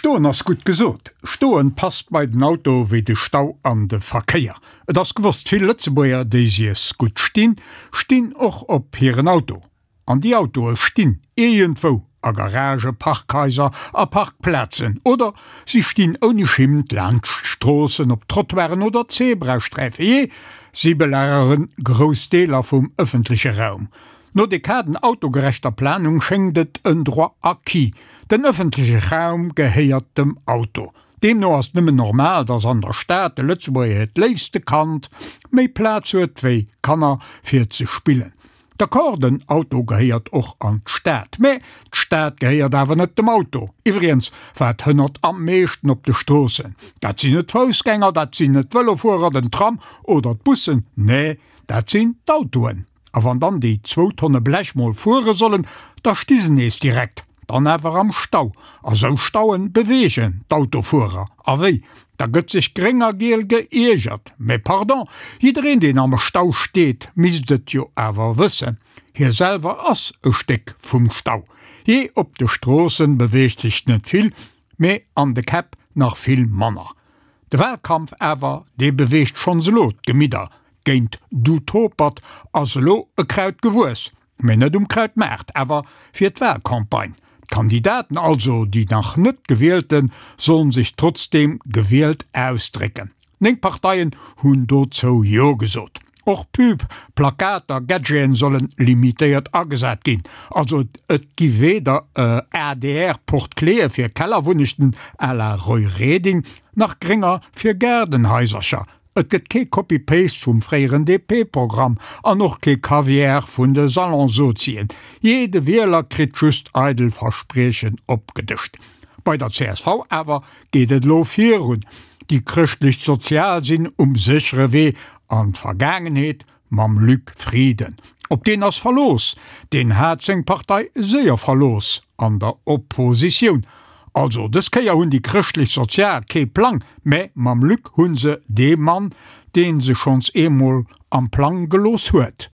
Stoen ass gutt gesot. Stoen passt bei den Auto wéi de Stau an de Verkéier. Et ass gewosst, vill Lëtzebuerger, déi sies gutt stinn, stinn och op hiren Auto. An déi Autoe stinn iergendwou, a Garagen, Parkhaiser, a Parkplazen oder si stinn ouni Schimmt laanscht Stroossen, op Trottoiren oder Zebrasträifen. Jee, si belagere grouss Deeler vum ëffentleche Raum. No Dekaden autogerechter Planung schéngt et en Droit acquis, den ëffentleche Raum gehéiert dem Auto. Deemno ass et nëmmen normal, datt an der Stad de Lëtzebuerger hiert léifste Kand méi Plaz huet wéi Kanner fir ze spillen. D'accord, den Auto gehéiert och an d'Stad, mä d'Stad gehéiert awer net dem Auto. Iwwregens, wat hënnert am meeschten op de Stroossen? Dat sinn net d'Foussgänger, dat sinn net d'Vëlofuerer, den Tram oder d'Bussen, nee, dat sinn d'Autoen. A wann dann déi zwou Tonne Blech mol fuere sollen, da sti se nees direkt, dann awer am Stau. A sou Stauen beweegen d'Autofuerer. A wéi? Da gëtt sech gréng a giel geiergert. Mä pardon, jiddereen deen am Stau steet, misst et jo awer wëssen, hie selwer ass e Stéck vum Stau. Jee, op de Stroossen beweegt sech net vill, mä an de Käpp nach vill manner. De Wahlkampf awer, dee beweegt schonns elo d'Gemidder. Géint du Topert ass elo e Kraut gewuess, mä net um Krautmaart, awer fir d'Wahlcampagne. D'Kandidaten, also déi nach net Gewielten, sollen sech trotzdeem gewielt ausdrécken. 9 Parteien hunn dozou Jo gesot. Och Pub, Plakater, Gadgeten sollen limitéiert agesat ginn. Also et gi weder ADR-Porte-cléë fir Kellerwunnechten à la Roy Reding, nach grénger fir Gaardenhaisercher. Et gëtt kee Copy-Paste vum fréieren DP-Programm an och kee Kaviar vun de Salonsozien. Jee, de Wieler kritt just eidel Verspriechen opgedëscht. Bei der csv awer geet et elo virun. Déi Chrëschtlech-Sozial sinn um séchere Wee an d'Vergaangenheet mam Luc Frieden. Op deen ass Verlooss, deen hat seng Partei séier verlooss an der Oppositioun. Also dës Kéier hunn déi Chrëschtlech-Sozial kee Plang, mä mam Luc hu se dee Mann, dee se schonns eemol am Plang gelooss huet.